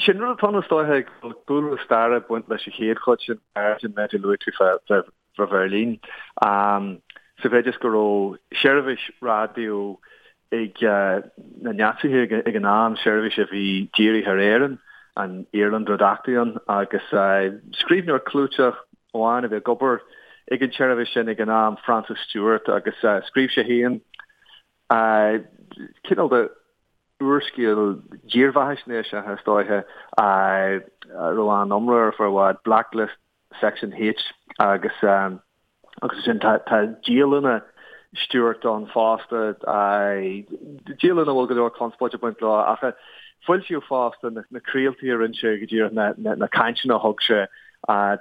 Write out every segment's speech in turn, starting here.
Sin rud atá ann is dóiche go bhfuil cúlra staire ag baint leis an chéad chuid sin an méid a luaigh tú fá Bheirlín. Sa mhéid is go raibh seirbhís raidió ag na Naitsithe ag an am, seirbhís a bhí dírithe ar Éirinn, an Irland Redaktion, agus scríbhneoir clúiteach amháin a bhí ag obair ag an tseirbhís sin ag an am, Francis Stuart, agus scríobh sé féin cineál de úrscéal dírbheathaisnéiseach, is dóiche, a raibh an-iomrá air ar feadh i bhfad, Blacklist Section H, agus agus ansin tá tá dialanna Stuart ann fosta, dialanna a bhfuil go leor conspóide ag baint leo, ach foilsíodh fosta na craoltaí a rinne sé go díreach na cainteanna a thug sé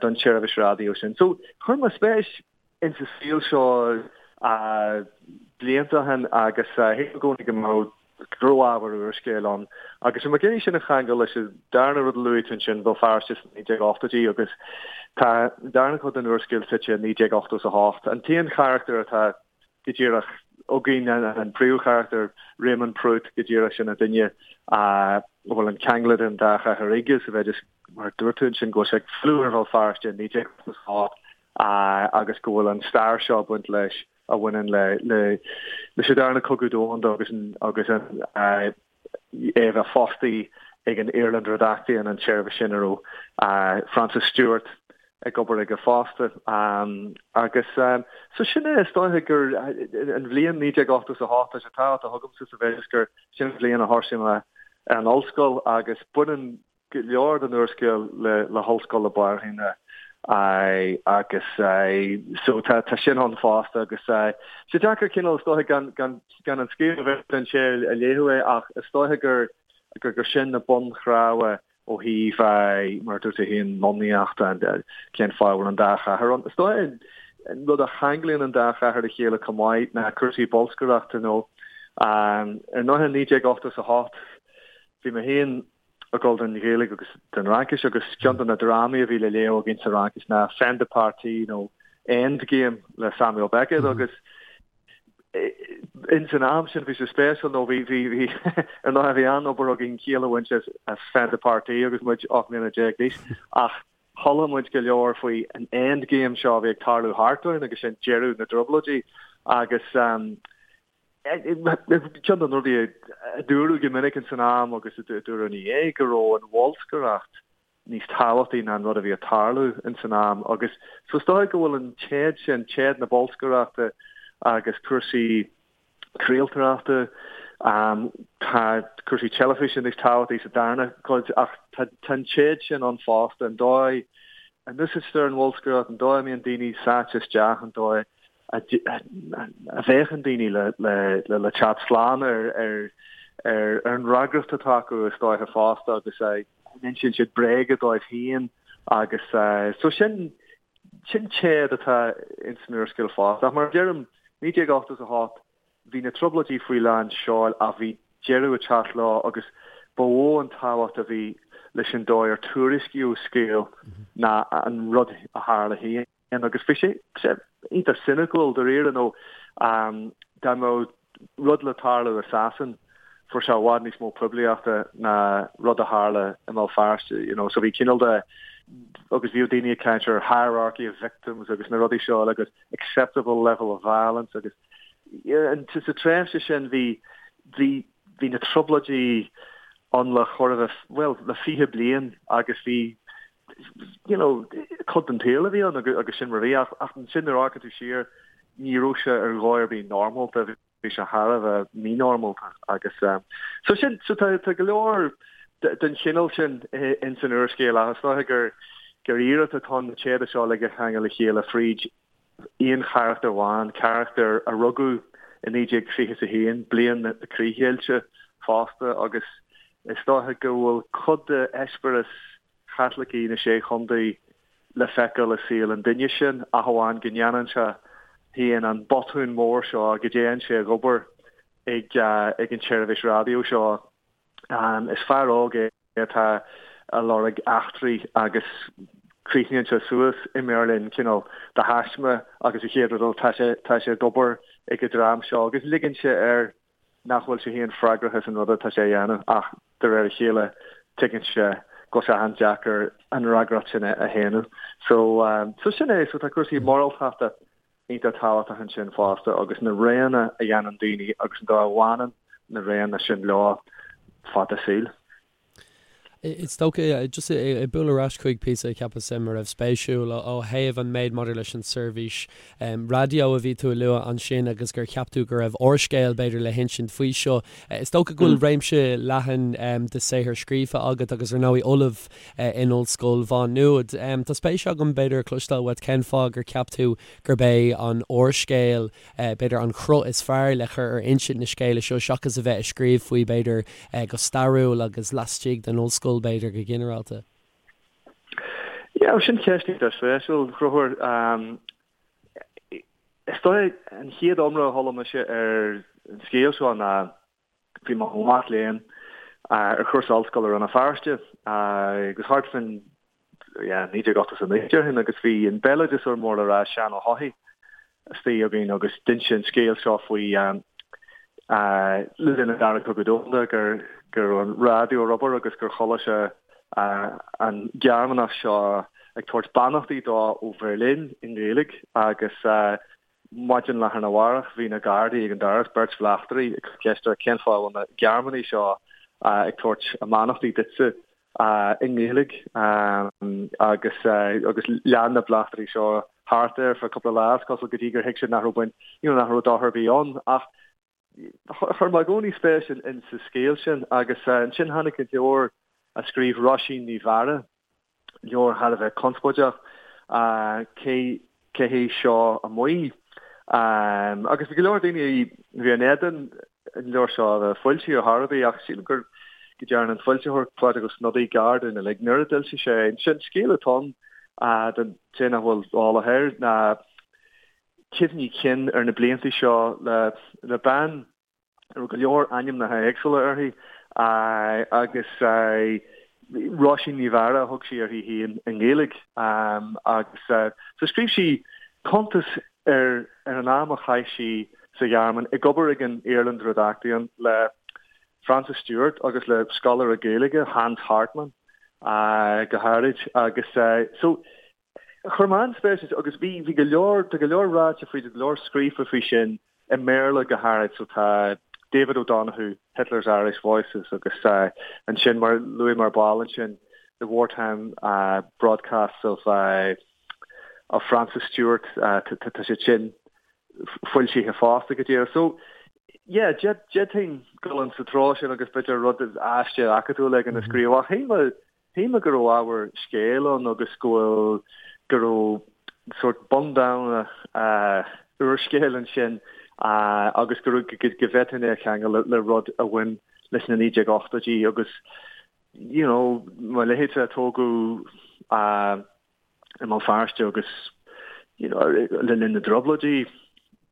don tseirbhís raidió sin. So chuir mé spéis insa saol seo blianta ó shin agus shíl mé i gcónaí go mbeadh go raibh ábhar úrscéil ann. Agus bhí mé ag iarraidh sin a cheangal leis an darna rud a luaigh tú ansin, Béal Feirste sna 1980idí agus tá an darna cuid den úrscéal suite i 1988. An t-aon charachtar atá go díreach againn, an príomhcharachtar, Raymond Prút, go díreach sin an duine a bhfuil an ceangal idir an dá chathair aige sa mhéid is, mar a dúirt tú ansin, go bhfuil sé ag filleadh ar Bhéal Feirste i 1988 agus go bhfuil an stair seo ag baint leis a bhaineann le leis an Darna Cogadh Domhanda agus agus an é a bheith fostaí ag an Irland Redaktion, an tseirbhís sin a raibh Francis Stuart ag obair aige fosta. Agus so sin é, is dóiche gur an bhliain 1988 tá sé tábhachtach agamsa sa mhéid is gur sin an bhliain a thosaigh mé ar an ollscoil agus baineann go leor den úrscéal le hOllscoil na Banríona agus so tá sin ann fosta agus tá sé deacair cineál is dóiche gan gan gan an scéal a bheith den té a léifeadh é ach is dóiche gur gur gur sin na bunchnámha ó thaobh mar a dúirt tú féin lonnaíocht cén fáth a bhfuil an dá chathair ann. Is dóiche an rud a cheanglaíonn an dá chathair le chéile chomh maith ná cúrsaí bolscaireachta nó ar ndóigh 1988 bhí mé féin ag dul don Ghaeilge agus don Fhraincis agus ceann de na drámaí a bhí le léamh againn sa Fhraincis ná Fin de partie nó Endgame le Samuel Beckett agus ins an am sin bhí sé spéisiúil nó bhí bhí bhí ar ndóigh bhí an-obair againn ciall a bhaint as as Fin de partie agus muid 18 mbliana d'aois ach chuala muid go leor faoi an Endgame seo a bhí ag tarlú thart orainn agus sin deireadh na dtrioblóidí agus Ceann de na rudaí a dúradh go minic ins an am agus a dúradh ina dhiaidh go raibh an bholscaireacht níos tábhachtaí ná an rud a bhí ag tarlú ins an am agus so is dóigh go bhfuil an téad sin, téad na bolscaireachta agus cúrsaí craoltóireachta, tá cúrsaí teilifíse níos tábhachtaí sa darna cuid ach tá an téad sin ann fosta, an dóigh a n-úsáidtear an bholscaireacht, an dóigh a mbíonn daoine sáite isteach, an dóigh a bhféachann daoine le teacht slán ar an fhreagracht atá acu is dóiche fosta agus a n-insíonn siad bréaga dóibh féin agus so sin sin téad atá ins an úrscéal fosta. Ach mar a deirim, 1988 bhí na trioblóidí faoi lán seoil ach bhí deireadh ag teacht leo agus ba mhó an tábhacht a bhí leis an dóigh ar tuairiscíodh scéal ná an rud a tharla féin. Agus bhí sé iontach soiniciúil dáiríre nó dá mbeadh rud le tarlú i Sasain fuair sé i bhfad níos mó poiblíochta ná rud a tharla i mBéal Feirste, you know. So bhí cineál de, agus bhíodh daoine ag caint ar hierarchy of victims agus na rudaí seo agus acceptable level of violence agus sa tréimhse sin bhí, bhí, bhí na trioblóidí ann le chóir a bheith, bhuel, le 20 bliain agus bhí you know, cuid den tsaol a bhí ann agus sin mar a bhí ach ansin nuair a amharcann tú siar ní raibh sé ar dhóigh ar bith normálta, bhí sé thar a bheith mínormálta agus so sin, so tá tá go leor den chineál sin ins an úrscéal ach is dóiche gur gur iarracht atá ann na téada seo uilig a cheangal le chéile fríd aon charachtar amháin, carachtar a rugadh i 1921, bliain na críochdheighilte fosta agus is dóiche go bhfuil cuid de eispéireas Chaitlicigh na Sé Chontae le feiceáil i saol an duine sin, ach amháin go ndéanann sé féin an botún mór seo, go dtéann sé ag obair ag an tseirbhís raidió seo. Is fear óg é atá ag lorg eachtraí agus críochnaíonn sé suas i mBeirlín, cineál de thaisme, agus an chéad rud eile tá sé tá sé ag obair ag an dream seo agus ligeann sé air nach bhfuil sé féin freagrach as an rud atá sé a dhéanamh ach de réir a chéile tuigeann sé. Go bhfuil sé an-deacair an fhreagracht sin a shéanadh. So, so sin é, so tá cúrsaí moráltachta iontach tábhachtach ansin fosta agus na roghanna a dhéanann daoine agus an dóigh a bhaineann na roghanna sin leo fad a saoil. Is dócha, just ag bualadh ar ais chuig píosa a cheapas a raibh spéisiúil ó thaobh an méid maidir leis an seirbhís raidió a bhí tú a lua ansin agus gur cheap tú go raibh úrscéal b'fhéidir le hinsint faoi seo. Is dócha go bhfuil réimse leathan de saothar scríofa agat agus ar ndóigh ollamh in Ollscoil Mhá Nuad. Tá spéis agam b'fhéidir cloisteáil uait cén fáth gur cheap tú gurb é an úrscéal b'fhéidir an cruth is fearr le cur ar insint na scéala seo seachas a bheith ag scríobh faoi b'fhéidir go stairiúil agus laistigh den ollscoil b'fhéidir go ginearálta. Yeah, sin ceist iontach spéisiúil, a Chonchúir. Is dóigh an chéad iomrá a chuala mise ar an scéal seo ná bhí mé i mo mhac léinn ar chúrsa ollscoile i Rann na Feirste agus thart faoin yeah, 1989 déarfainn agus bhí an béaloideasóir mór le rá Seán Ó hEochaidh istigh againn agus d'inis sé an scéal seo faoi le linn an Dara Cogadh Domhanda gur go raibh an raidió ar obair agus gur chuala sé an Gearmánach seo ag tabhairt beannachtaí dó ó Bheirlín i nGaeilge agus Maidin lá arna mhárach bhí na Gardaí ag an doras, beirt bhleachtairí, ag cur ceist air cén fáth a bhfuil na Gearmánaigh seo ag tabhairt a mbeannachtaí duitse i nGaeilge agus agus lean na bleachtairí seo thart air feadh cúpla lá is cosúil go dtí gur thuig siad nach raibh baint, you know, nach raibh dochar ar bith ann. Ach chuir mé i gcónaí spéis in sa scéal sin agus ansin tháinig an leabhar a scríobh Róisín Ní Mheára, leabhar thar a bheith conspóideach, cé cé hé seo amuigh? Agus bhí go leor daoine a bhí in éadan an leabhar seo a bheith foilsithe ar chor ar bith ach sílim gur go dtearn an foilsitheoir Pádraig Ó Snodaigh gar dúinn uilig nuair a d'fhoilsigh sé é. Ansin scéal atá ann don té nach bhfuil eolach air ná cuimhní cinn ar na blianta seo le le bean a raibh go leor ainmneacha éagsúla uirthi agus Róisín Ní Mheára a thug sí uirthi féin i nGaeilge agus so scríobh sí cuntas ar ar an am a chaith sí sa Ghearmáin ag obair ag an Iarlann Redaktion le Francis Stuart agus le scoláire Gaeilge Hans Hartmann go háirid agus so Chuir mé an-spéis ann agus bhí, bhí go leor, tá go leor ráite faoi, tá go leor scríofa faoi sin i mBéarla go háirid, so tá David O'Donoghue, Hitler's Irish Voices agus ansin mar luaigh mé ar ball ansin The Wartime Broadcasts of of Francis Stuart, tá siad sin foilsithe fosta go díreach. So yeah, d'fhéadfainn dul in sa treo sin agus b'fhéidir rud aiste acadúil éigin a scríobh ach shíl mé Shíl mé go raibh ábhar scéil ann agus go bhfuil, go raibh sórt bundamhna úrscéil ansin agus go raibh, go bhféadfainn é a cheangal le rud a bhain leis na 1980idí agus you know, mo leithéidse a tógadh i mBéal Feirste agus you know, le linn na dTrioblóidí,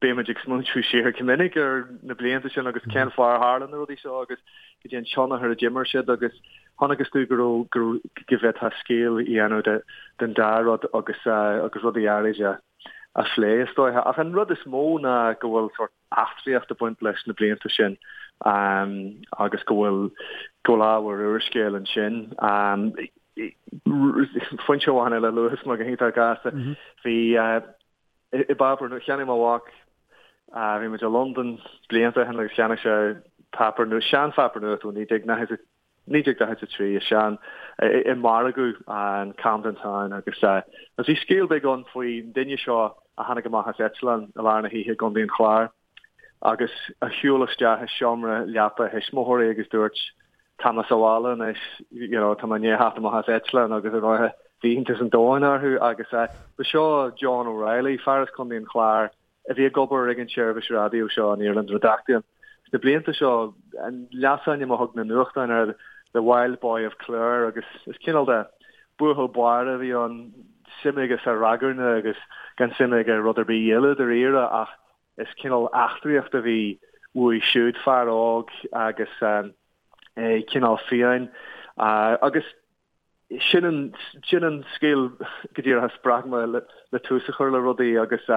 bímid ag smaointiú siar go minic ar na blianta sin agus cén fáth ar tharla na rudaí seo agus cad é an tionchar a d'imir siad agus chonacthas domh go raibh, go raibh, go bhféadfá scéal a dhéanamh de, den dá rud agus, agus rudaí áirid a, a phlé is dóiche. Ach an rud is mó ná go bhfuil sórt eachtraíocht ag baint leis na blianta sin agus go bhfuil go bhfuil ábhar úrscéil ansin. Foinse amháin eile a luafas mé go hiontach gasta. Bhí i bpáipéar nua, cheannaigh mo mhac, bhí muid i Londain blianta ó shin agus cheannaigh sé páipéar nua, seanpháipéar nuachta ó 1940 1943 i sean i margadh an Camden Town agus agus bhí scéal beag ann faoin duine seo a tháinig amach as eitleán i lár na hoíche i gContae an Chláir agus a shiúil isteach i seomra leapa a thuismitheoirí agus dúirt tá mé sa bhaile anois you know tá mé i ndiaidh theacht amach as eitleán agus ar ndóighe bhí iontas an domhain orthu agus ba seo John O'Reilly fear as Contae an Chláir a bhí ag obair ag an tseirbhís raidió seo, an Iarlann Redaktion. Sna blianta seo, an leasainm a thug na nuachtáin air, The Wild Boy of Clare, agus is cineál de buachaill báire a bhí ann, suim aige sa ragairne agus gan suim aige i rud ar bith eile dáiríre, ach is cineál eachtraíocht a bhí uaidh siúd, fear óg agus é cineál fiáin. Agus sin an, sin an scéal go díreach a spreag mé le tús a chur le rudaí agus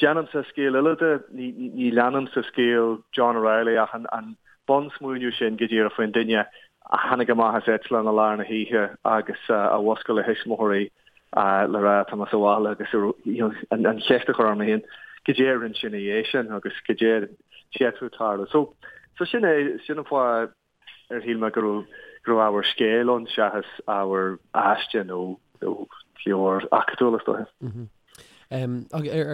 déanaimse scéal eile de, ní, ní leanaimse scéal John O'Reilly ach an, an bunsmaoineamh sin go díreach faoin duine. a tháinig amach as eitleán i lár na hoíche agus a mhuscail a thuismitheoirí le rá tá mé sa bhaile agus an cheist a chur orm féin goidé a rinne sé ina dhiaidh sin agus goidé a d'fhéadfadh tarlú. So, so sin é, sin an fáth ar shíl mé go raibh, go raibh ábhar scéil ann seachas ábhar aiste nó, nó leabhar acadúil is dóiche. Ar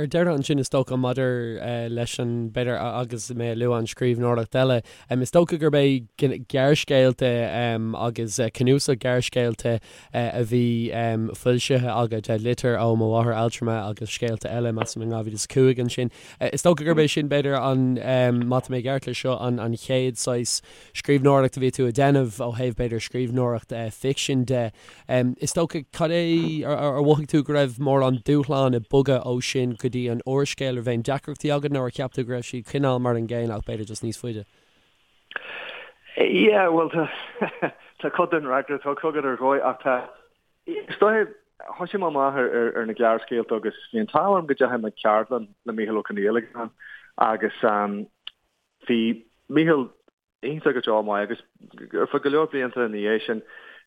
deireadh ansin is dócha maidir leis an, b'fhéidir agus mé ag lua an scríbhneoireacht eile, is dócha gurb é gearrscéalta agus cnuasach gearrscéalta a bhí foilsithe agat, Litir ó mo mháthair altrama agus scéalta eile, measaim in 2005 ansin. Is dócha gurb é sin b'fhéidir an, má tá mé i gceart leis seo, an chéad saghas scríbhneoireacht a bhí tú a déanamh ó thaobh b'fhéidir scríbhneoireacht ficsin de. Is dócha, cad é, ar mhothaigh tú go raibh mórán dúshlán ag bogadh ó sin go dtí an úrscéal? Raibh aon deacrachtaí agat nó ar cheap tú go raibh siad cineál mar an gcéanna ach b'fhéidir just níos faide? Yeah, bhuel tá, tá cuid den fhreagra tugtha agat ar dhóigh ach tá, is dóiche, thosaigh mé amach ar, ar, ar na gearrscéalta agus bhí an t-ádh orm go dteachaigh mé ceardlann le Mícheál Ó Conghaile ag an am agus bhí Mícheál iontach go deo maith agus ar feadh go leor blianta ina dhiaidh sin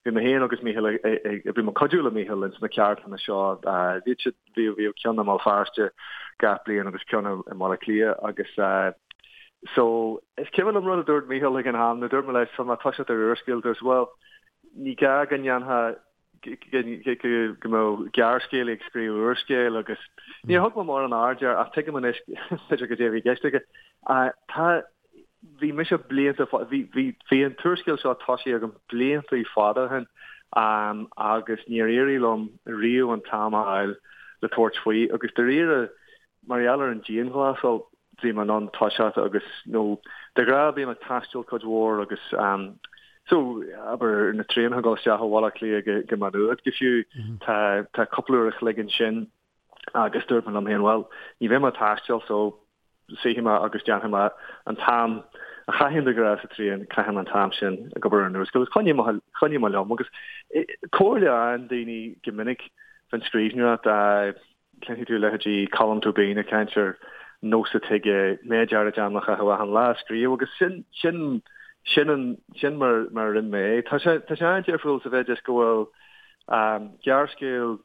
bhí mé féin agus Mícheál ag, bhí mé ag cuidiú le Mícheál ins na ceardlanna seo. Bhíodh siad, bhíodh, bhíodh ceann i mBéal Feirste gach bliain agus ceann i mBaile Átha Cliath agus so is cuimhin liom rud a dúirt Mícheál ag an am, nuair a dúirt mé leis tá mé ag toiseacht ar úrscéal, dúirt bhuel ní gá go ndéanfá go mbeadh gearrscéalaí ag scríobh úrscéil agus níor thug mé mórán aird air ach tuigim anois b'fhéidir goidé a bhí i gceist aige. Tá, bhí mise blianta, bhí, bhí, bhí an t-úrscéal seo tosaithe agam blianta fada ó shin agus níor éirigh liom riamh an t-am a fháil le tabhairt faoi agus dáiríre Mar gheall ar an dianghlasáil, bhí mé in ann toiseacht agus, nó de ghnáth bím ag taisteal cuid mhór agus so, abair, na traenacha ag dul isteach ó Bhaile Átha Cliath go, go Maigh Nuad go fiú, tá, tá cúpla uair a chloig ansin agus dúirt mé liom féin, bhuel, ní bheidh mé ag taisteal so suífidh mé agus déanfaidh mé an t-am a chaithfinn de ghnáth sa traein, caithfidh mé an t-am sin ag obair ar an úrscéal agus choinnigh mé, choinnigh mé liom agus comhairle a fhaigheann daoine go minic faoin scríbhneoireacht, Cluinfidh tú leithéidí Colm Tóibín ag caint ar nós atá aige méid áirid ama a chaitheamh achan lá ag scríobh agus sin, sin, sin an, sin mar, mar a rinne mé é. Tá sé, tá sé an-difriúil sa mhéid is go bhfuil gearrscéal,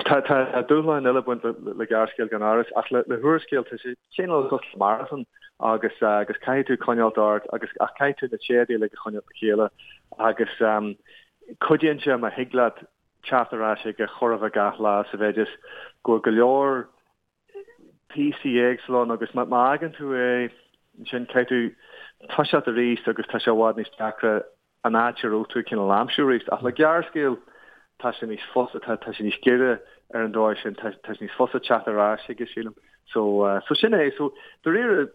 tá, tá dúshláin eile ag baint le, le gearrscéal gan amhras ach le, le húrscéal tá sé cineál cosúil le marathon agus, agus caithfidh tú coinneáilt ort agus ach caithfidh tú na téadaí uilig a choinneáilt le chéile agus cuidíonn sé má thig leat teacht ar ais chuige chóir a bheith gach lá sa mhéid is go bhfuil go leor píosaí éagsúla ann agus má fhágann tú é ansin caithfidh tú toiseacht arís agus tá sé i bhfad níos deacra an áit a raibh tú cineál a aimsiú arís. Ach le gearrscéal tá sé níos fusa, tá sé níos giorra ar an dóigh sin, tá sé níos fusa teacht ar ais chuige sílim. So, so sin é. So, dáiríre,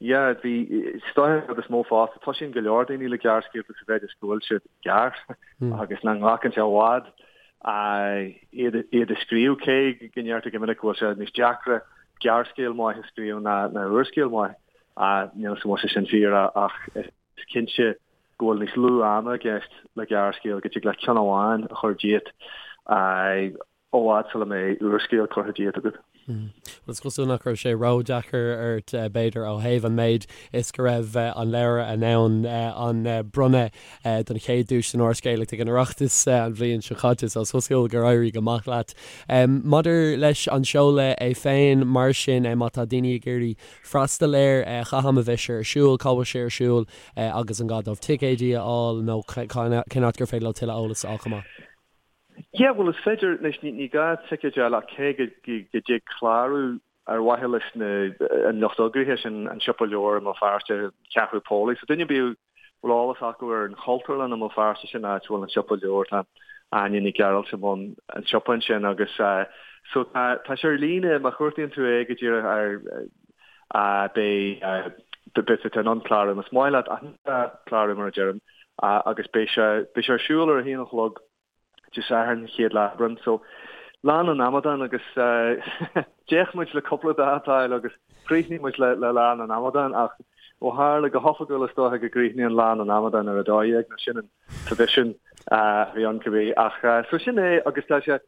Yeah, bhí, is dóiche an rud is mó fosta, toisíonn go leor daoine le gearrscéalta sa mhéid is go bhfuil siad gearr agus nach nglacann sé i bhfad iad iad a scríobh, cé go ndeirtear go minic go bhfuil sé níos deacra gearrscéal maith a scríobh ná ná úrscéal maith. Níl a fhios an bhfuil sé sin fíor ach is cinnte go bhfuil níos lú ama i gceist le gearrscéal, go dtig leat ceann amháin a chur díot. i bhfad sula mbeidh úrscéal curtha díot agat. Bhuel, is cosúil nach raibh sé ródheacair ort, b'fhéidir, ó thaobh an méid is go raibh an leabhar in ann an bronnadh don chéad duais san úrscéalaíocht ag an Oireachtas an bhliain seo caite, so is cosúil gur éirigh go maith leat. Maidir leis an seoladh é féin, mar sin, má tá daoine ag iarraidh freastal air, cá ham a bheidh sé ar siúl, cá bhfuil sé ar siúl agus an gá dóibh ticéidí a fháil nó cén áit gur féidir leo tuilleadh eolais a fháil chomh maith? Yeah, bhuel is féidir, anois ní gá ticéid a fháil ach cé go dtig clárú ar mhaithe leis na, an lucht eagraithe sin, an Siopa Leabhar i mBéal Feirste, Ceathrú Póilí. So duine ar bith a bhfuil eolas acu ar an Chultúrlann i mBéal Feirste, sin áit a bhfuil an Siopa Leabhar, tá Áine Ní Ghearailt i mbun an tsiopa ansin agus so tá, tá sé ar líne, má chuartaíonn tú é go díreach ar, beidh, beidh tú in ann clárú más maith leat ach ní gá clárú mar a deirim agus beidh sé, beidh sé ar siúl ar a haon a chlog Dé Sathairn, chéad lá Aibreán. So, Lá na nAmadán agus d'fhéach muid le cúpla dáta a fháil agus chríochnaigh muid le Lá na nAmadán ach ó tharla go hoifigiúil is dócha go gcríochnaíonn Lá na nAmadán ar 12 nó sin an traidisiún a bhí ann cibé ach so sin é agus tá sé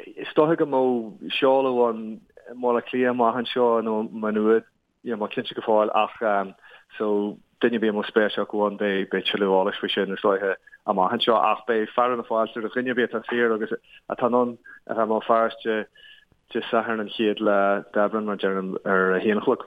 is dócha go mbeidh seoladh ann i mBaile Átha Cliath amach anseo nó Maigh Nuad. Níl mé cinnte go fóill ach so duine ar bith a mbeadh spéis acu ann beidh beidh tuilleadh eolais faoi sin is dóiche amach anseo ach beidh fearadh na fáilte roimh dhuine ar bith atá saor agus atá in ann a bheith i mBéal Feirste Dé Sathairn an chéad lá d'Aibreán mar deirim ar a haon a chlog.